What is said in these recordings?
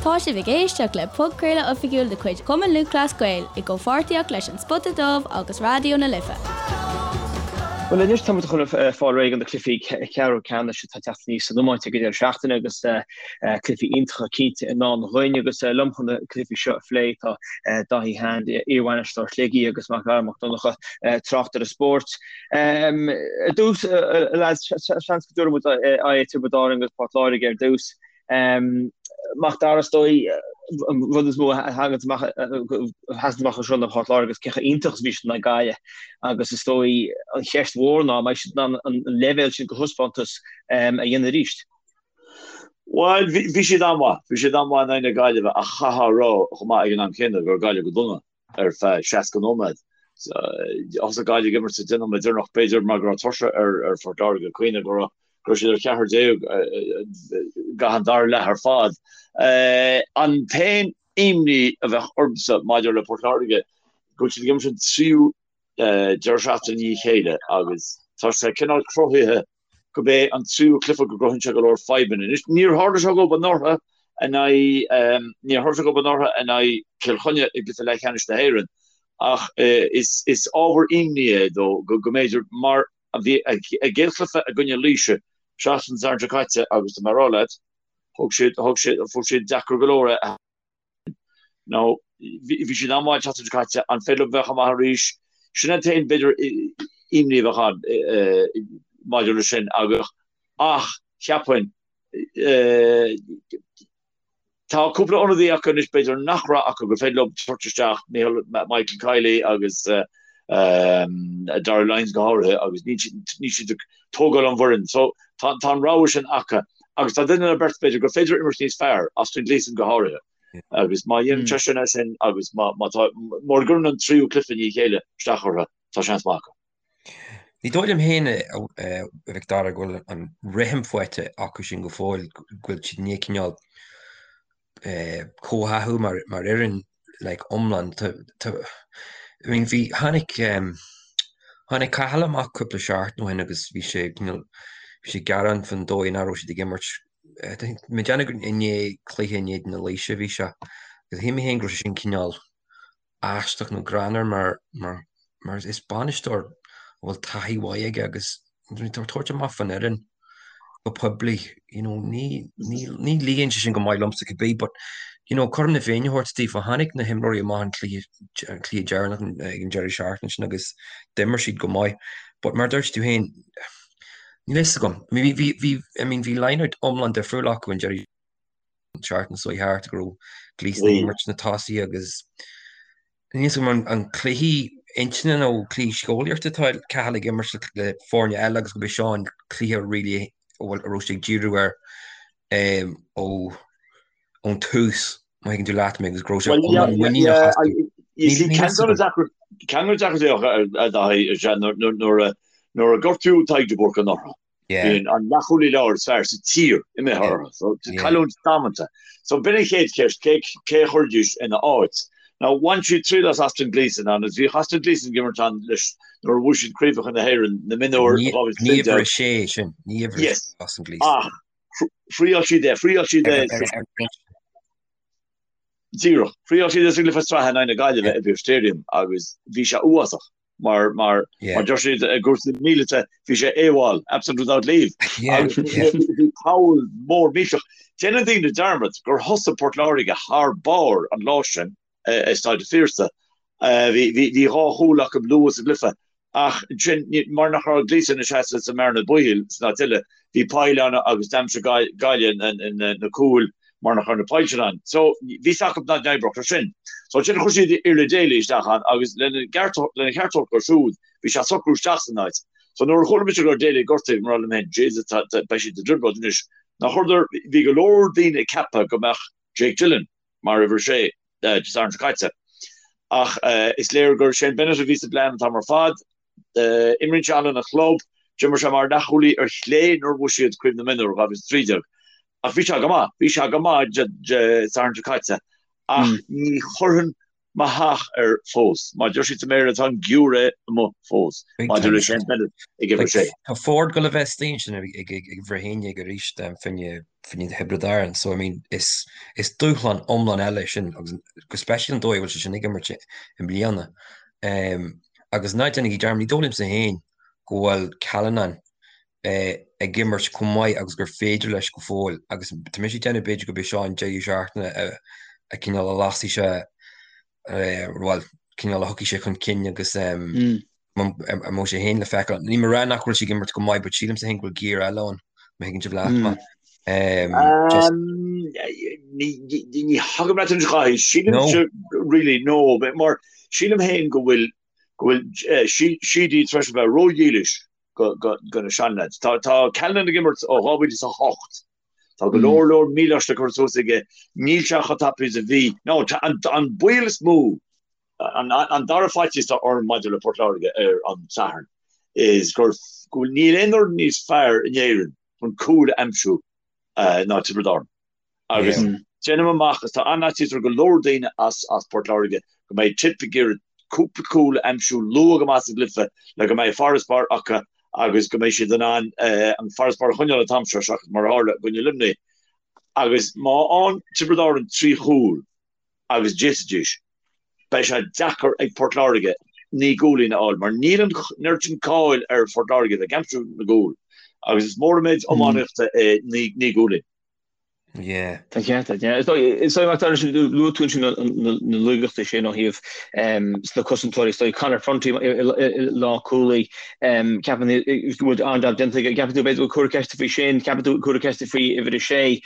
Tá sibh ag éisteacht le podchraoladh oifigiúil de chuid Chumann Lúthchleas Gael i gcomhpháirtíocht leis An Spota Dubh agus Raidió na Life. Bhuel anois tá muid chun fáil réidh do na cluichí ceathrú ceannais atá ag teacht aníos san iomáint ag an deireadh seachtaine agus cluichí iontacha cinnte i ndán dhúinn agus liom chun na cluichí seo a phlé tá Dáithí Hand, iarbhainisteoir Shligigh agus Mac Dara Mac Donncha, tráchtaire spóirt. Ar dtús, a lads, seans go dtabharfaidh muid aghaidh ar Tiobraid Árann agus Port Láirge ar dtús. Mac Dara, is dóigh, an rud is mó a thagann amach, a sheasann amach anseo ná Port Láirge agus cé chomh iontach is a bhí siad in aghaidh Gaillimh agus is dóigh an cheist mhór ná an mbeidh siad in ann an leibhéal sin de thaispeántas a dhéanamh arís. Bhuel, bhí siad an-mhaith, bhí siad an-mhaith in aghaidh na Gaillimhe ach chaithfeá a rá chomh maith ag an am céanna go raibh Gaillimh go dona. ar feadh 60 nóiméad. Thosaigh Gaillimh ag imirt sa 10 nóiméad deireanach, b'fhéidir mar go raibh tuirse ar Phort Láirge, cuimhnigh go raibh siad ar cheathrar déag i gcaitheamh an dara leath ar fad. An t-aon imní a bheadh ormsa maidir le Port Láirge go bhfuil siad ag imirt an tríú deireadh seachtaine i ndiaidh a chéile agus tá sé cineál cruthaithe gurb é an tríú cluiche go gcruthaíonn sé go leor fadhbanna. Anois, níor tharla sé dhóibh anuraidh in aghaidh, níor tharla sé dhóibh anuraidh in aghaidh Chill Chainnigh i gcluiche leathcheannais na hÉireann ach is, is ábhar imní é dó go, go mb'fhéidir mar a bhí a gcéad chluiche i gcoinne Laoise seachtain Sathairn seo caite agus tá mé ag rá leat, thug siad, thug siad, fuair siad deacair go leor é. Now, bhí siad an-mhaith an tseachtain seo caite, an féidir leo bheith chomh maith arís? Sin an t-aon, b'fhéidir, imní a bheadh ann maidir leis sin agus, ach cheapfainn, tá cúpla ionadaí acu anois b'fhéidir nach raibh acu gur féidir leo tabhairt isteach, Michael, Michael Kiely agus Darragh Lyons go háirithe agus níl siad ag tógáil an bhfoireann. So tá an rogha sin acu agus tá duine nó beirt b'fhéidir gur féidir imirt níos fearr, Austin Gleeson go háirithe. Agus má dhéanann seisean é sin agus má tá, mura gcuireann an tríú cluiche i ndiaidh a chéile isteach orthu, tá seans maith acu. Ní dóigh liom féin, a Mhic Dara, go bhfuil an rithim faighte acu sin go fóill, go bhfuil siad i ndiaidh cineál comhtháthú mar fhoireann like iomlán. I mean bhí, tháinig, tháinig Cathal amach cúpla seachtain ó shin agus bhí sé cineál, bhí sé ag gearán faoin dóigh nach raibh siad ag imirt. I think, mé ag déanamh gur i ndiaidh cluiche in éadan na Laoise a bhí sé. Agus shíl mé féin go raibh sé sin cineál aisteach nó greannmhar mar, mar, mar is bainisteoir a bhfuil taithí mhaith aige agus tá ag tabhairt amach faoin fhoireann go poiblí, you know, ní, ní, ní luíonn sé sin go maith liomsa cibé, but, you know, cothrom na Féinne a thabhairt daofa, tháinig na himreoirí amach an cluiche, an cluiche deireanach ag an deireadh seachtaine sin agus d'imir siad go maith. But mar a dúirt tú féin, níl a fhios agam. I mean, bhí, bhí, I mean, bhí line-out iomlán difriúil acu an deireadh seachtaine seo thart go raibh Gleeson ag imirt sna tosaithe agus níl a fhios agam an cluiche intinne nó cluiche síceolaíochta atá Cathal ag imirt le foirne eile agus gurb é seo an cluiche really a bhfuil a raibh sé ag díriú air ó ón tús má thuigeann tú leat mé agus go raibh sé iomlán muiníneach astu. Ceann de na deacrachtaí a Dhaithí is ea nuair a gortaíodh Tadhg de Búrca anuraidh. Bíonn an leathchúlaí láir is fearr sa tír imithe orthu. So, cailliúint damanta. So, b'in an chéad cheist, cé cé a chuirfidís ina áit? Now, bhain siad triail as Austin Gleeson agus bhíodh Austin Gleeson ag imirt ann leis nuair a bhuaigh siad Craobhacha na hÉireann na mionúr in 2013. Ní uimhir a sé sin, ní uimhir a sé Austin Gleeson. Ach thriail siad é, thriail siad é. Díreach. Thriail siad é sa gcluiche sraithe in aghaidh na Gaillimhe i bPearse Stadium agus bhí sé uafásach. Mar mar mar deir siad i gcúrsaí míleata bhí sé AWOL, absent without leave. Agus bhí poll mór millteach. Déanann daoine dearmad gur thosaigh Port Láirge thar barr an lá sin i Staid an Phiarsaigh. Bhí bhí dhá chúl acu luath sa gcluiche ach ansin mar nach raibh Gleeson ina seasamh sa mbearna baoil san áit eile bhí poill ann agus d'aimsigh Gaillimh na cúil mar nach raibh na poill sin ann. So, bhí fhios acu nach n-oibreodh sé sin. So, ansin chuir siad Iarla Daly isteach ann agus lena gceart lena cheart a thabhairt dó siúd, bhí sé ag socrú isteach san áit. So, nuair a chuala mise go raibh Daly gortaithe, bhí mé ag rá liom féin, Jesus, tá, tá, beidh siad i dtrioblóid anois. Nár chuireadar, bhí go leor daoine ag ceapadh go mbeadh Jake Dillon mar uimhir a sé Dé Sathairn seo caite. Ach is léir gur Shane Bennett a bhí sa bplean an t-am ar fad. Imríonn sé ann lena chlub. D'imir sé mar leathchúlaí ar chlé nuair a bhuaigh siad Craobh na Mionúr 2013. Ach bhí sé go maith, bhí sé go maith Dé Sathairn seo caite. Ach ní chuirfinn. mo theach air fós. Mar a deir siad sa mBéarla, tá an giúiré amuigh fós maidir le Shane Bennett ag uimhir a sé. Tá Forde ag dul a bheith istigh ansin ag uimhir 11 arís fá choinne Thiobraid Árann so I mean is dúshlán iomlán eile é sin agus go speisialta an dóigh a bhfuil sé sin ag imirt i mbliana. Agus ná déanaigí dearmad, ní dóigh liomsa féin go bhfuil Callanan ag imirt chomh maith agus gur féidir leis go fóill agus tá mise ag déanamh b'fhéidir gurb é seo an deireadh seachtaine a cineál a lasfaidh sé bhuel cineál a thiocfaidh sé chun cinn agus a mbeidh sé féin le feiceáil. Níl mé ag rá nach bhfuil sé ag imirt go maith but sílimse féin go bhfuil giar eile ann má thuigeann sibh leat mé. Ní thagaim leat anois a Dhaithí, sílimse really no mar sílim féin go bhfuil go bhfuil Sheedy tar éis a bheith ródhílis do na seanleaids. Tá Callanan ag imirt ó 2008. Tá go leor leor míleáiste curtha suas aige. Níl sé chomh tapaidh is a bhí. Now, an baol is mó, an dara faitíos atá orm maidir le Port Láirge ar an Satharn is gur go bhfuil níl aon fhoireann níos fearr in Éirinn chun cúil a aimsiú ná Tiobraid Árann. Agus déanaim amach, is tá an-fhaitíos ar go leor daoine as Port Láirge go mbeidh Tip ag iarraidh cúpla cúl a aimsiú luath go maith sa gcluiche le go mbeidh farasbarr acu agus go mbeidh siad in ann an farasbarr a choinneáil an t-am seo seachas mar a tharla i gcoinne Luimnigh. Agus má fhaigheann Tiobraid Árann 3 chúl agus d'fhéadfaidís, beidh sé deacair ag Port Láirge 9 gcúilín a fháil mar níl an oiread sin cáil ar Phort Láirge bheith ag aimsiú na gcúl agus is mór an méid iománaíochta é 9 gcúilín. Yeah. Tá ceart agat, yeah. Is dóigh, is dóigh, Mac Dara, luaigh tú ansin na laigeachtaí sin ó thaobh sna cosantóirí. Is dóigh Conor Prunty i lánchúlaí, ceapann go bhfuil an-jab déanta aige. Ceapann tú b'fhéidir go bhfuil cúrsa ceiste faoi sin, ceapann tú cúrsa ceiste faoi uimhir a sé,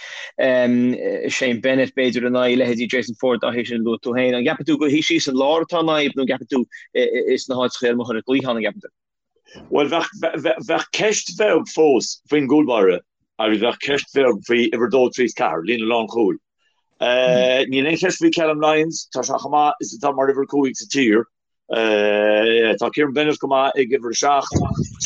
Shane Bennett b'fhéidir in aghaidh leithéidí Jason Forde dá théis sin a luaigh tú féin. An gceapann tú gur thíos síos san lár atá an fhadhb nó an gceapann tú is na háiteacha ar amuigh ar an gcliathán an gceapann tú? Bhuel, bheadh ceist bheag fós faoin gcúlbáire agus bheadh ceist bheag faoi uimhir 2, 3 is 4, líne lánchúil. Níl aon cheist faoi Callum Lyons, tá sé chomh maith is atá mar uimhir 5 sa tír. Tá Kieran Bennett go maith ag uimhir 7.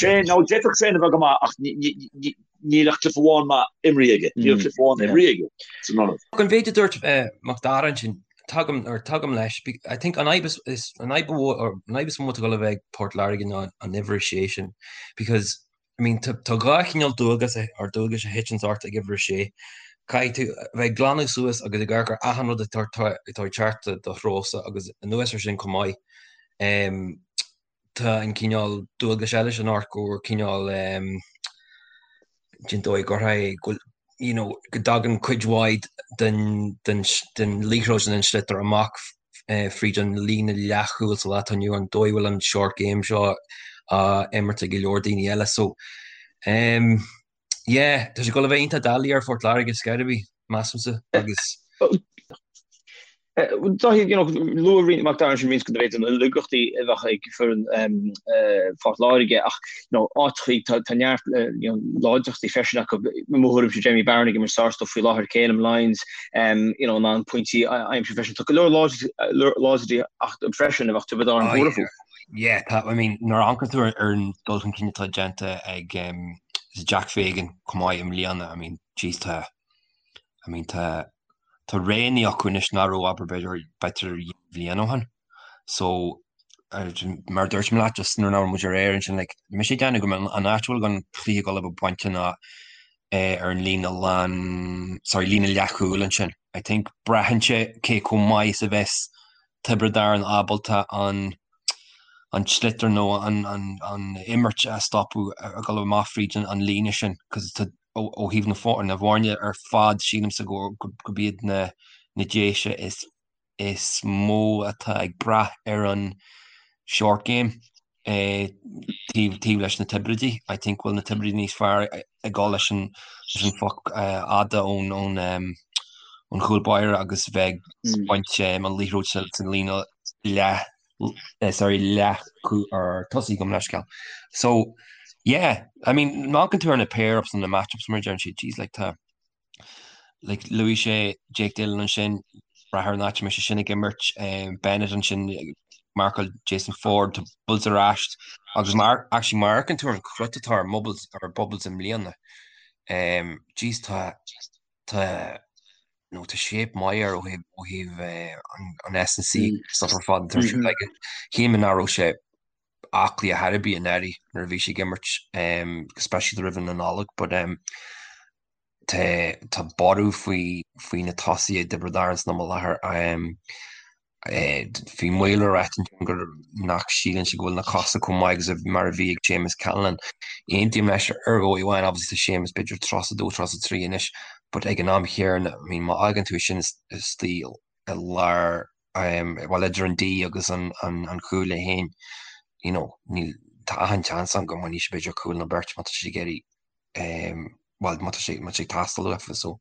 Shane, nó d'fhéadfadh Shane a bheith go maith ach níl ach cluiche amháin maith imrithe aige. Níl cluiche amháin imrithe aige san ionad. An mhéid a dúirt Mac Dara ansin, Tagaim, or tagaim leis, I think an fhadhb is, an fhadhb or an fhadhb is mó atá ag dul a bheith ag Port Láirge ná an uimhir a sé sin because I mean tá tá dhá chineál dualgas or dualgais a thiteann ort ag uimhir a sé. Caithfidh tú a bheith ag glanadh suas agus ag amharc ar achan rud atá atá ag teacht do threosa agus anuas ar sin chomh maith um, tá an cineál dualgais eile sin ort gur cineál den dóigh gur go you know go dtagann cuid mhaith den den den liathróid den sliotar amach fríd an líne leathchúil sa lá atá inniu an dóigh bhfuil an short game seo á imirt ag go leor daoine eile so um, Yeah, tá sé ag dul a bheith iontach doiligh ar Phort Láirge ar scor ar bith, measaimse, agus. Dáithí, you know, luaigh roinnt Mac Dara ansin roinnt de b'fhéidir na laigeachtaí a bheadh ag foireann Phort Láirge ach, you know, áiteachaí tá tá neart you know, láidreachtaí freisin acu. I mo thuairimse Jamie Barron ag imirt sárstuif faoi láthair, Calum Lyons, you know, in ann pointí a aimsiú freisin. Tá go leor láidreachtaí acu freisin a bheadh Tiobraid Árann Oh, buartha yeah. fúthu. Yeah, tá, I mean, nuair a amharcann tú ar an dul chun cinn atá déanta ag Jack Fagan chomh maith i mbliana, I mean, jeez, tá, I mean, tá, tá roghanna acu anois nach raibh, abair, b'fhéidir, b'fhéidir bliain ó shin. So, mar a dúirt mé leat, just nuair nach raibh muid ar aer ansin, like, tá mise ag déanamh go mbeidh an áit a bhfuil an cluiche ag dul a bheith bainte ná ar an líne lán, sorry, líne leathchúil ansin. I think braitheann sé cé chomh maith is a bheas Tiobraid Árann ábalta an an sliotar nó an an imirt a stopadh ag dul amach fríd an líne sin cos tá ó thaobh na na bhfoirne ar fad sílimse go gurb iad na na Déise is is mó atá ag brath ar an short game taobh taobh leis na Tiobraidigh. I think bhfuil na Tiobraidigh níos fearr ag dul leis an leis an phoc fhada ón ón ón chúl báire agus bheith ag baint an liathróid sa sa líne leath sorry leath or tosaigh gabh mo leithscéal. So yeah, I mean má amharcann tú ar na pair-ups and na match-ups mar a deireann siad, jeez like tá Like luaigh sé Jake Dillon ansin, brath ar an áit a mbeidh sé sin ag imirt, Bennett ansin ag marcáil Jason Forde, tá Bubbles ar ais agus mar actually má amharcann tú ar an chrut atá ar Bubbles ar Bubbles i mbliana, jeez tá tá. Nó tá shape maith air ó thaobh ó thaobh an S&C stuff ar fad tá sé like shíl mé nach raibh sé aclaí ar chor ar bith anuraidh nuair a bhí sé ag imirt go speisialta roimh na Nollag but um, tá tá borradh faoi faoi na tosaithe i dTiobraid Árann san am i láthair um, Bhí Maol ag ráit ansin gur nach síleann sé go bhfuil na cosa chomh maith agus mar a bhí ag Séamus Callanan. Aontaím leis ar dhóigh amháin, obviously tá Séamus b'fhéidir 32, 33 anois, but ag an am chéanna, I mean má fhágann tú é sin istigh i lár, bhuel idir an D agus an chúl é féin, you know, níl, tá achan chance ann go mbainfidh sé b'fhéidir cúl nó beirt má tá sé ag iarraidh, bhuel má tá sé, má tá sé ag teastáil uafa, so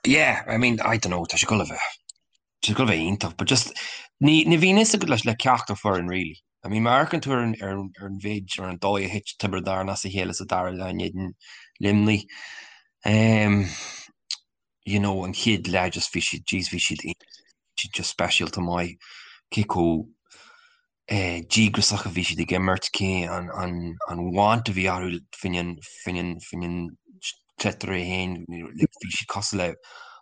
yeah, I mean, I don't know, tá sé ag dul a bheith. Tá sé ag dul a bheith iontach, but just ní ní bhíonn fhios agat leis le ceachtar foireann really. I mean má amharcann tú ar an ar an ar an mhéid ar an dóigh a thit Tiobraid Árann as a chéile sa dara leath in éadan Luimnigh, um, you know, an chéad leath just bhí siad, jeez bhí siad siad just speisialta maith cé chomh díograiseach a bhí siad ag imirt, cé an want a bhí orthu faoin sliotar é féin, bhí siad cosúil le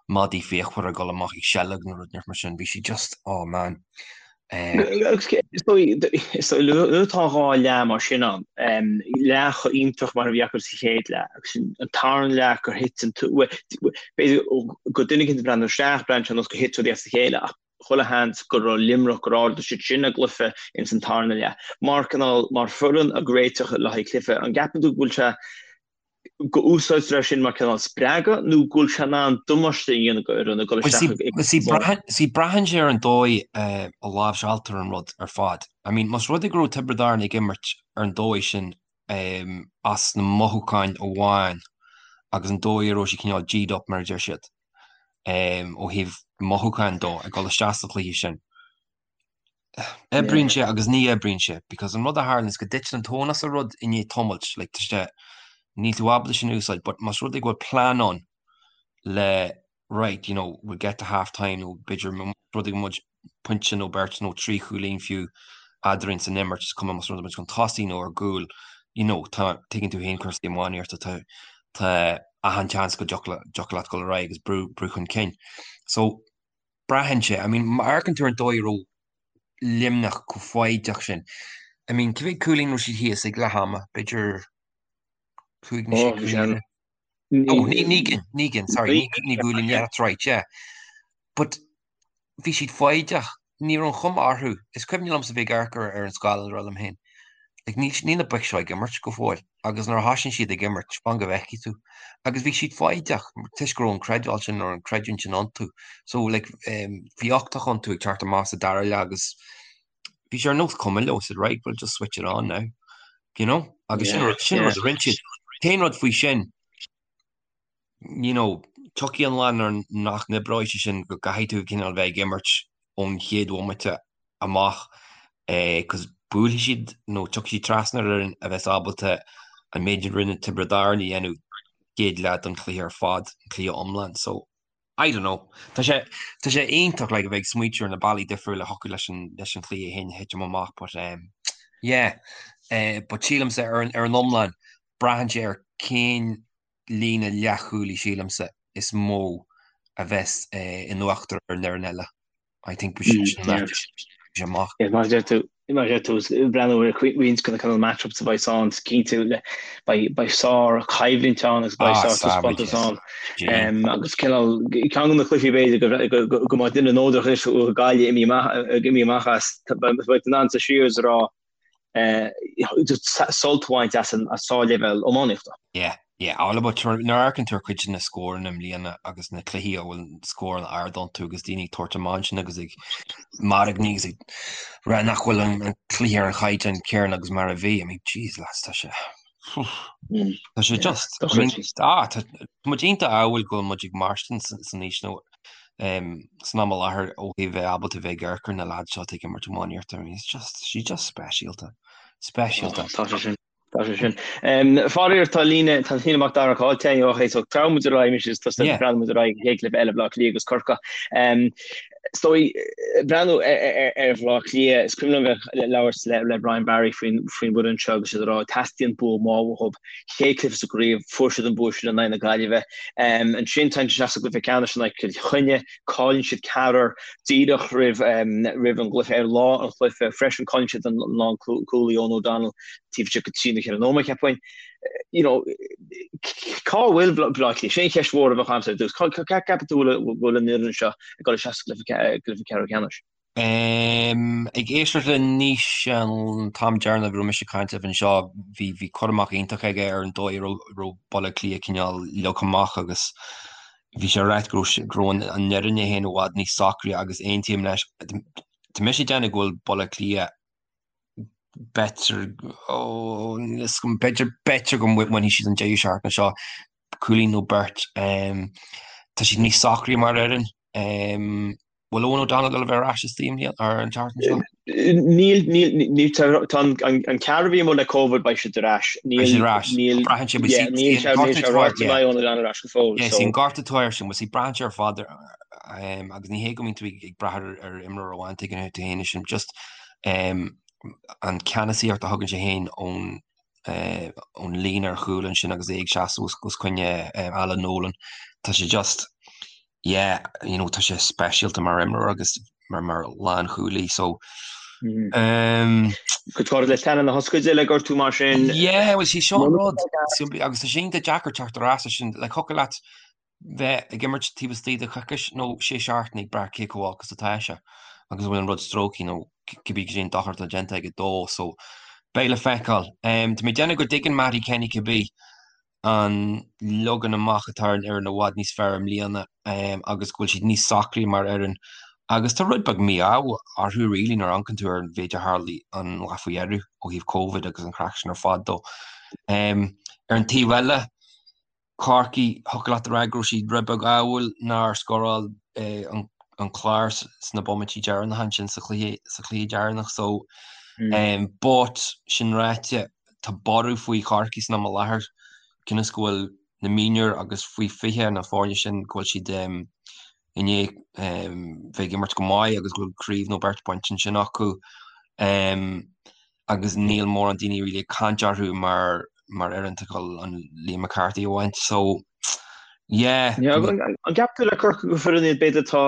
madaí fíochmhara ag dul amach ag seilg nó rud mar sin, bhí siad just, oh man. Is dóigh, nuair atá dhá leath mar sin ann, leath chomh iontach mar a bhí acu sa chéad leath, agus an tarna leath gur thit an, b'fhéidir go duine éicint ag breathnú isteach, breathnaíonn sé ar nós gur thit rudaí as a chéile ach chuile sheans go raibh Luimneach gur ardaigh siad sin a gcluiche ins an tarna leath. Mar cineál, mar foireann ag réiteach le haghaidh cluiche, an gceapann tú go bhfuil sé, go úsáidtear é sin mar cineál spreagadh nó go bhfuil sé in ann damáiste a dhéanamh go fhoireann ag dul isteach ag See, see, braitheann sé ar an dóigh a láimhseáiltear an rud ar fad. I mean, más rud é go raibh Tiobraid Árann ag imirt ar an dóigh sin as na mothúcháin amháin agus an dóigh a raibh siad cineál G'd up mar a deir siad, ó thaobh mothúcháin dó ag dul isteach sa chluiche sin. Oibríonn sé agus ní oibríonn sé because an rud a tharlaíonn is go dtiteann an tóin as an rud i ndiaidh tamaill, like tá sé, níl tú ábalta sin a úsáid but más rud é go bhfuil plean ann le right, you know, we'll get to half time nó b'fhéidir más rud é go muid pointe nó beirt nó 3 chúilín fiú eadrainn san imirt, is cuma más rud é muid chun tosaigh nó ar gcúl, you know, tá, tuigeann tú féin cúrsaí iománaíochta, tá, tá achan chance go dtiocfadh leat dul ar aghaidh agus brú, brú chun cinn. So, braitheann sé, I mean, má amharcann tú ar an dóigh a raibh Luimneach chomh foighdeach sin, I mean, cé mhéad cúilín raibh siad thíos ag leath ama, b'fhéidir 5 nó 6 cúilín? Oh, naoi gcinn, sorry, naoi gcúilín, yeah, that's right, yeah. But bhí siad foighdeach, ní raibh an chuma orthu, is cuimhin liomsa bheith ag amharc ar an scáileán ag rá liom féin, like, níl, níl na boic seo ag imirt go fóill, agus nuair a thosaíonn siad ag imirt, fan go bhfeicfidh tú. Agus bhí siad foighdeach, toisc go raibh an creidbheáil sin, nó an creidiúint sin iontu. So, like, um, bhí uchtach iontu ag teacht amach sa dara leath agus bhí sé ar nós cuma leo, said, right, we'll just switch it on now, you know? Agus sin rud, sin rud a rinne siad. An t-aon rud faoi sin, you know, tiocfaidh an lá nuair nach n-oibreoidh sé sin go gcaithfidh tú cineál bheith ag imirt ón chéad bhomaite amach eh, cos buailfidh siad nó tiocfaidh siad trasna ar fhoireann a bheas ábalta an méid a rinne Tiobraid Árann a dhéanamh chéad leath den chluiche ar fad, an cluiche iomlán. So, I don't know. Tá sé, tá sé iontach like a bheith ag smaoitiú ar na bealaí difriúla a thiocfadh leis an, leis an chluiche féin a thitim amach but um, yeah. Eh, but sílimse ar an, ar an iomlán, braitheann sé ar cén líne leathchúlaí sílimse is mó a bheas eh, in uachtar ar an fhoireann eile. I think we should sin an áit amach. Yeah, mar a deir tú, mar a deir tú, breathnú ar roinnt de na cineál matchups a bheidh ann, is cinnte le beidh beidh sár choimhlint ann agus beidh sár taispeántas ann. Agus cineál ceann de na cluichí b'fhéidir go go go mbeidh duine neodrach anois ó Ghaillimh imithe amach imithe amach as beidh in ann suí siar is a rá sult a bhaint as an sárleibhéal iománaíochta. Yeah, yeah, all about nuair a amharcann tú ar cuid de na scóranna i mbliana agus na cluichí a bhfuil scóranna ard iontu agus daoine ag tabhairt amach ansin agus ag mairgní agus ag rá nach bhfuil an cluiche ar an chaighdeán céanna agus mar a bhí. I mean, jeez lads, tá sé tá sé just I mean, ah, tá muid iontach ádhúil go bhfuil muid ag mairstin san aois nó san am i láthair ó thaobh bheith ábalta bheith ag amharc ar na lads seo ag imirt iománaíocht. I mean, it's just, she's just speisialta. Speisialta. Tá sé sin. Tá sé sin. Faraor tá líne tá líne Mac Dara caillte againn ó thaobh so treabhann muid ar aghaidh anois is tosaigh Yeah. breathnú muid ar aghaidh an chéad chluiche eile Bleá Cliath agus Corcaigh. Is dóigh breathnú ar Bhleá Cliath is cuimhin liom bheith ag labhairt le le Brian Barry faoin faoin bhfoireann seo agus siad ag rá teastaíonn bua maith uathu. Chéad chluiche sa gcraobh fuair siad an bua sin in aghaidh na Gaillimhe. Ansin téann siad isteach sa gcluiche ceannais in aghaidh Cill Chainnigh, cailleann siad ceathrar díreach roimh roimh an gcluiche ar lá an chluiche freisin cailleann siad an lánchúlaí Eoghan O'Donnell taobh istigh de trí nó cheithre nóiméad cheapfainn. You know, cá bhfuil Bleá Cliath? Sin an cheist mhór a bheadh agamsa ar dtús. Cá gceapann tú go bhfuil an fhoireann seo ag dul isteach sa gcluiche ceathrú ceannais? Ag éisteacht le Naoise an t-am deireanach a raibh mise ag caint libh anseo, bhí bhí cur amach iontach aige ar an dóigh a raibh raibh Baile Átha Cliath cineál leagtha amach agus bhí sé ag ráit go raibh go raibh an fhoireann é féin i bhfad níos socraí agus aontaím leis. Tá mise ag déanamh go bhfuil Baile Átha Cliath b'fhéidir, ó, níl a fhios agam, b'fhéidir, b'fhéidir go mbainfidh siad an deireadh seachtaine seo, cúilín nó beirt. Tá siad níos socraí mar fhoireann. Bhfuil Eoghan O'Donnell ag dul a bheith ar ais istigh i mbliana, ar an tseachtain seo? Níl, níl, níl, tá tá an, an, an ceathrar a bhí amuigh le Covid, beidh siad ar ais. Níl, Beidh siad ar ais. níl, Braitheann sé, yeah, níl sé, níl sé ráite go mbeidh Eoghan O'Donnell ar ais go fóill, Yeah, so. See an gortú atá air sin, see braitheann sé ar fad ar, agus ní hé go mbíonn tú ag brath ar, ar imreoir amháin tuigeann tú féin é sin, just an ceannasaíocht a thugann sé féin ón, ón líne ar chúl ansin agus é ag seasamh os, os coinne Alan Nolan, tá sé just, yeah, you know, tá sé speisialta mar imreoir agus mar, mar lánchúlaí, so um, Cuid fáirid le teannán na hoscaide le gortú mar sin. Yeah, well, sí seo an rud, agus tá sé iontach deacair teacht ar ais sin, like, thiocfadh leat bheith ag imirt taobh istigh de choicís nó sé seachtaine ag brath cé chomh olc is atá sé agus an bhfuil an rud stróicthe nó cibé cad é an dochar atá déanta aige dó so beidh le feiceáil. Tá mé ag déanamh go dtuigeann Mattie Kenny cibé an leagan amach atá ar an fhoireann i bhfad níos fearr i mbliana agus go bhfuil siad níos socraí mar fhoireann agus tá rud beag mí-ádh orthu really nuair a amharcann tú ar an mhéid a tharlaigh an lá faoi dheireadh ó thaobh Covid agus an chraic sin ar fad dó. Ar an taobh eile, Corcaigh, thiocfadh leat a rá go raibh siad rud beag ádhúil nár scóráil an Clár sna bomaití deireanacha ansin sa chluiche sa chluiche deireanach so but sin ráite tá borradh faoi Chorcaigh san am i láthair cionn is go bhfuil na mionúir agus faoi 20 na foirne sin go bhfuil siad i ndiaidh bheith ag imirt go maith agus go bhfuil craobh nó beirt bainte ansin acu agus níl mórán daoine really ag caint orthu mar mar fhoireann atá ag dul an Liam McCarthy a bhaint so yeah. An gceapann tú le Corcaigh gur foireann iad b'fhéidir atá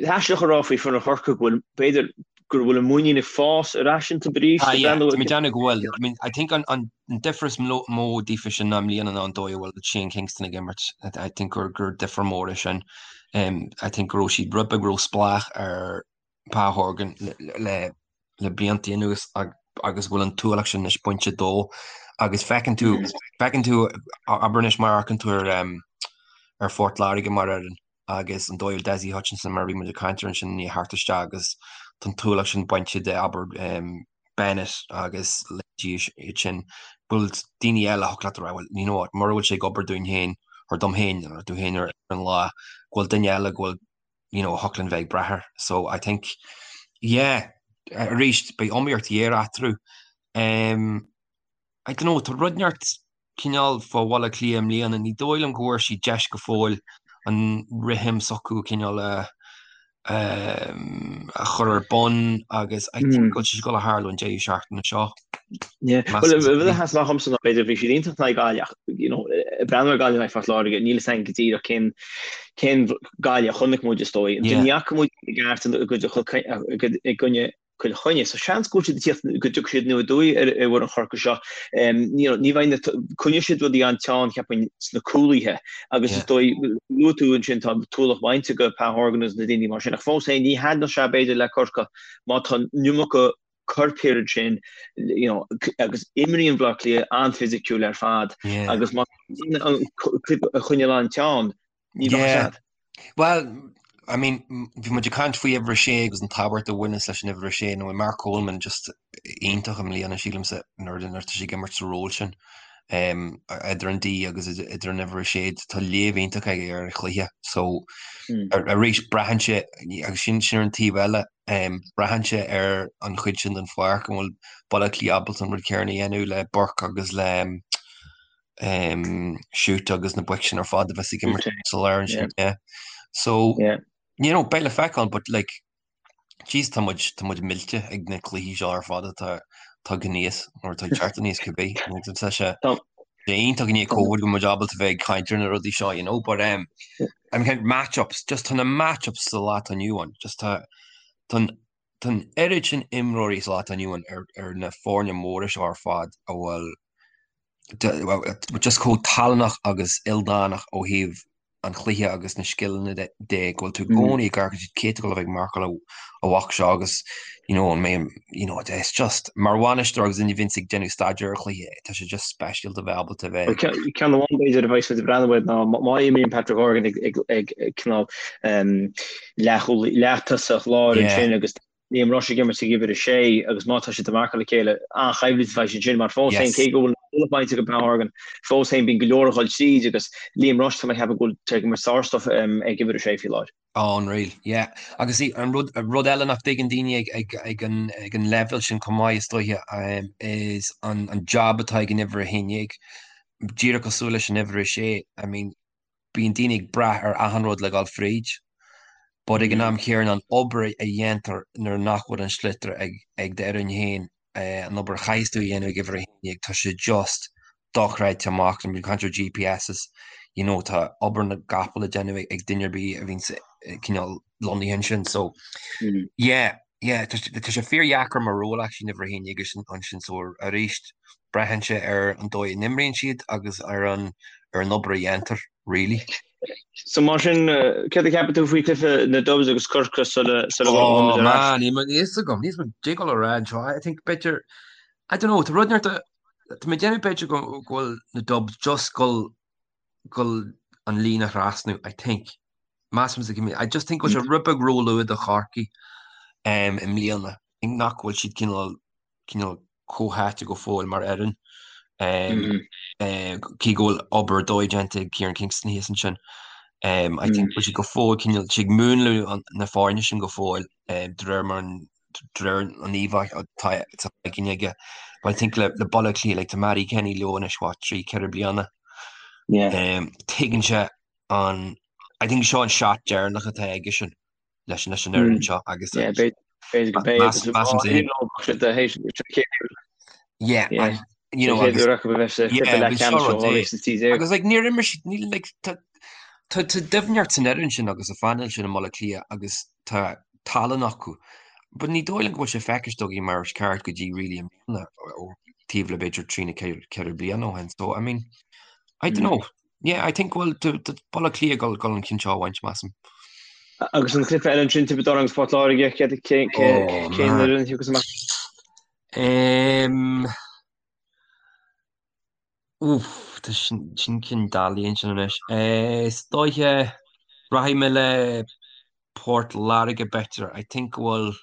aisteach a rá faoi foireann Chorcaí go bhfuil b'fhéidir go bhfuil an muinín ag fás ar ais iontu arís. Ah yeah, tá mé ag déanamh go bhfuil. I mean, I think an an difear is mó daofa sin ná i mbliana ná an dóigh a bhfuil Shane Kingston ag imirt. I think gur gur difear mór é sin. I think go raibh siad rud beag ró-spleách ar Pa Horgan le le blianta anuas agus go bhfuil an t-ualach sin anois bainte dó agus feiceann tú feiceann tú abair anois má amharcann tú ar ar Phort Láirge mar fhoireann agus an dóigh a bhfuil Dessie Hutchinson mar a bhí muid ag caint air ansin i ndiaidh theacht isteach agus tá an t-ualach sin bainte de abair Bennett agus leithéidí iad sin bhfuil daoine eile a thiocfadh leat a rá well you know what mura bhfuil sé ag obair dúinn féin or dom féin or tú féin ar an lá go bhfuil duine eile go bhfuil you know a thiocfadh linn bheith ag brath air so I think yeah arís beidh iomaíocht ghéar eatarthu um, I don't know tá rud inteacht cineál fá Bhaile Átha Cliath i mbliana, ní dóigh liom go bhfuair siad deis go fóill an rithim s'acu cineál a a chur ar bun agus I think go bhfuil sé ag dul a tharlú an deireadh seachtaine seo. Yeah. Well, rud a sheas amach dhomsa ná b'fhéidir bhí siad iontach in aghaidh Gaillimh ach you know, ag breathnú ar Gaillimh in aghaidh Phort Láirge, níl a fhios againn go díreach cén cén Gaillimh a chonaic muid is dóigh. Yeah. Ní fhaca muid i gceart i gcoinne Cill Chainnigh. So seans go bhfuil siad ag tíocht go dtiocfaidh siad aniar aduaidh ar ar fhoireann Chorcaí seo. You know, ní bheidh na coinneoidh siad rudaí an-teann cheapfainn sna cúlaithe agus is dóigh luaigh tú ansin tá an t-ualach bainte de Pa Horgan agus na daoine mar sin ach fós féin ní thaitneodh sé b'fhéidir le Corcaigh má tá an iomarca coirp thiar ansin you know, agus imríonn Baile Átha Cliath an-fhisiciúil ar fad agus má an cluiche a choinneáil an-teann Ní bheadh Yeah. Sad. Well, I mean, bhí muid ag caint faoi uimhir a sé agus an tábhacht a bhaineas leis an uimhir a sé, nó Mark Coleman just iontach i mbliana sílimse nuair nuair atá sé ag imirt sa ról sin. Um, idir an D agus idir an uimhir a sé, tá léamh iontach aige ar an chluiche. So, mm. arís braitheann sé agus sin sin ar an taobh eile. Braitheann sé ar an chuid sin den pháirc, an bhfuil Baile Átha Cliath ábalta an rud céanna a dhéanamh le Burke agus le Shute agus na boic sin ar fad a bheas ag imirt sa lár ansin. Yeah. So, you know, beidh le feiceáil, but like, jeez, tá muid, tá muid millte ag na cluichí seo ar fad atá tagtha aníos, nó atá ag teacht aníos cibé. Tá sé iontach i ndiaidh Covid go bhfuil muid ábalta bheith ag caint ar na rudaí seo, you know, but um, I mean, match-ups, just tá na match-ups sa lá atá inniu ann, just tá, tá an, tá an oiread sin imreoirí sa lá atá inniu ann ar, ar na foirne móra seo ar fad a bhfuil just chomh tallannach agus ildánach ó thaobh an chluiche agus na scileanna de go bhfuil tú i gcónaí ag amharc cé atá ag dul a bheith ag marcáil an bhoc seo agus you know an mbeidh you know it's just mar bhainisteoir agus duine a bhíonns ag déanamh staidéar ar chluiche tá sé just speisialta bheith ábalta bheith Ceann amháin b'fhéidir a bheas muid ag breathnú air ná má imríonn Patrick Horgan ag ag cineál leath-tosach láir ansin agus Liam Rushe ag imirt ag uimhir 6 agus má tá siad ag marcáil a chéile, an-choimhlint a bheidh ansin mar fós féin, cé go bhfuil an bainte ag Pat Horgan, fós féin bíonn go leor ag dul tríd agus Liam Rushe tá mé ag ceapadh go bhfuil sé ag imirt sár-stuif ag uimhir 6 faoi láthair. Oh, unreal, yeah. Agus an rud, rud eile nach dtuigeann daoine ag, ag, ag an, ag an leibhéal sin chomh maith is dóiche, is an, an job atá ag an uimhir 11, díreach cosúil leis an uimhir 6, I mean, bíonn daoine ag brath ar achan rud le dhul fríd, but ag an am chéanna an obair a dhéantar nuair nach bhfuil an sliotar ag ag d'fhoireann féin, an obair a chaithfeas tú a dhéanamh ag uimhir 11, tá sé just dochreidte amach. Bíonn caint ar GPSs, you know, tá obair na gcapall le déanamh ag duine ar bith a bhíonn cineál lonnaithe ansin. So, yeah, yeah, tá sé fíordheacair mar ról actually an uimhir 11 ansin so arís braitheann sé ar an dóigh a n-imríonn siad agus ar an ar an obair a dhéantar, really. So mar sin, céard a cheapann tú faoi chluiche na Dubs agus Corcaigh sula sula bhfuil muid ar ais? Oh man, níl a fhios agam, níl a fhios agam cad é dul a rá anseo. I think b'fhéidir, I don't know, tá rud inteacht, tá mé ag déanamh b'fhéidir go bhfuil na Dubs just dul dul an líne a thrasnú, I think. Measaim, I just think go bhfuil sé rud beag róluath do Chorcaigh um, i mbliana. I think nach bhfuil siad cineál cineál comhtháite go fóill mar fhoireann. Um, mm. uh, cé go bhfuil obair dóigh déanta ag Kieran Kingston thíos ansin. Um, I think mm. bhfuil siad go fóill cineál siad ag múnlú na foirne sin go fóill um, de réir mar an de réir an íomhá atá againn aige. But I think le le Baile Átha Cliath, like, tá Mattie Kenny leo anois, what, 3, 4 bliana. Yeah. Um, tuigeann sé an I think seo an shot deireanach atá aige sin leis leis an fhoireann seo agus Yeah, b'fhéidir go mbeidh Yeah, Yeah. and, you know, agus- Yeah, bhí seo rud é. Agus like, níor imir siad, níl, like, tá tá tá doimhneacht san fhoireann sin agus sa phainéal sin i mBaile Átha Cliath agus tá tallann acu. But ní dóigh liom go bhfuil sé feicthe againn mar is ceart go dtí really i mbliana ó taobh le b'fhéidir trí nó 4 bliana ó shin. So, I mean, I don't know. Yeah, I think go bhfuil Baile Átha Cliath ag dul an ceann seo a bhaint, measaim. Agus an cluiche eile ansin, Tiobraid Árann agus Port Láirge, cén Oh, cén man. fhoireann a thiocfas amach? Um, Uff, tá sin sin ceann doiligh ansin anois. Is dóiche, rachaidh mé le Port Láirge b'fhéidir. I think go bhfuil,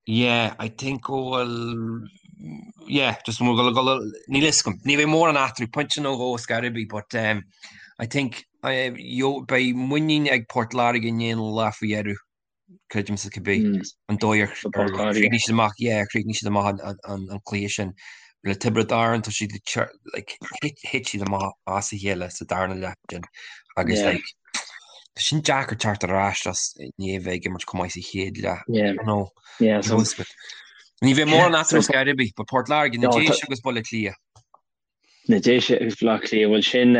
yeah, I think go bhfuil, yeah, just go bhfuil, go bhfuil, níl fhios agam. Ní bheidh mórán eatarthu, pointe nó dhó ar scor ar bith, but um, I think uh, yo, beidh muinín ag Port Láirge i ndiaidh an lá faoi dheireadh. Creidimse cibé an dóigh ar chríochnaigh siad amach, yeah, chríochnaigh siad amach an cluiche sin le Tiobraid Árann, tá siad like, thit siad amach as a chéile sa darna leath sin agus like, tá sin deacair teacht ar ais as i ndiaidh bheith ag imirt chomh maith sa chéad leath. Yeah. You know, Yeah, so, ní bheidh mórán eatarthu ar scor ar bith, but Port Láirge, na Déise agus Baile Átha Cliath. Na Déise agus Baile Átha Cliath, bhuel sin,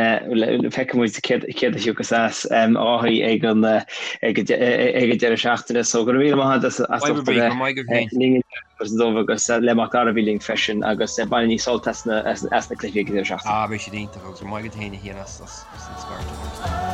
feicfidh muid céard a thiocfas as a Dháithí ag an ag an deireadh seachtaine. So go raibh míle maith agat as ucht a bheith linn inniu dubh agus le Mac Dara a bhí linn freisin agus bainigí sult as na cluichí ag an deireadh seachtaine. Ah, beidh siad iontach agus go raibh maith agat féin a Chian as an scairt.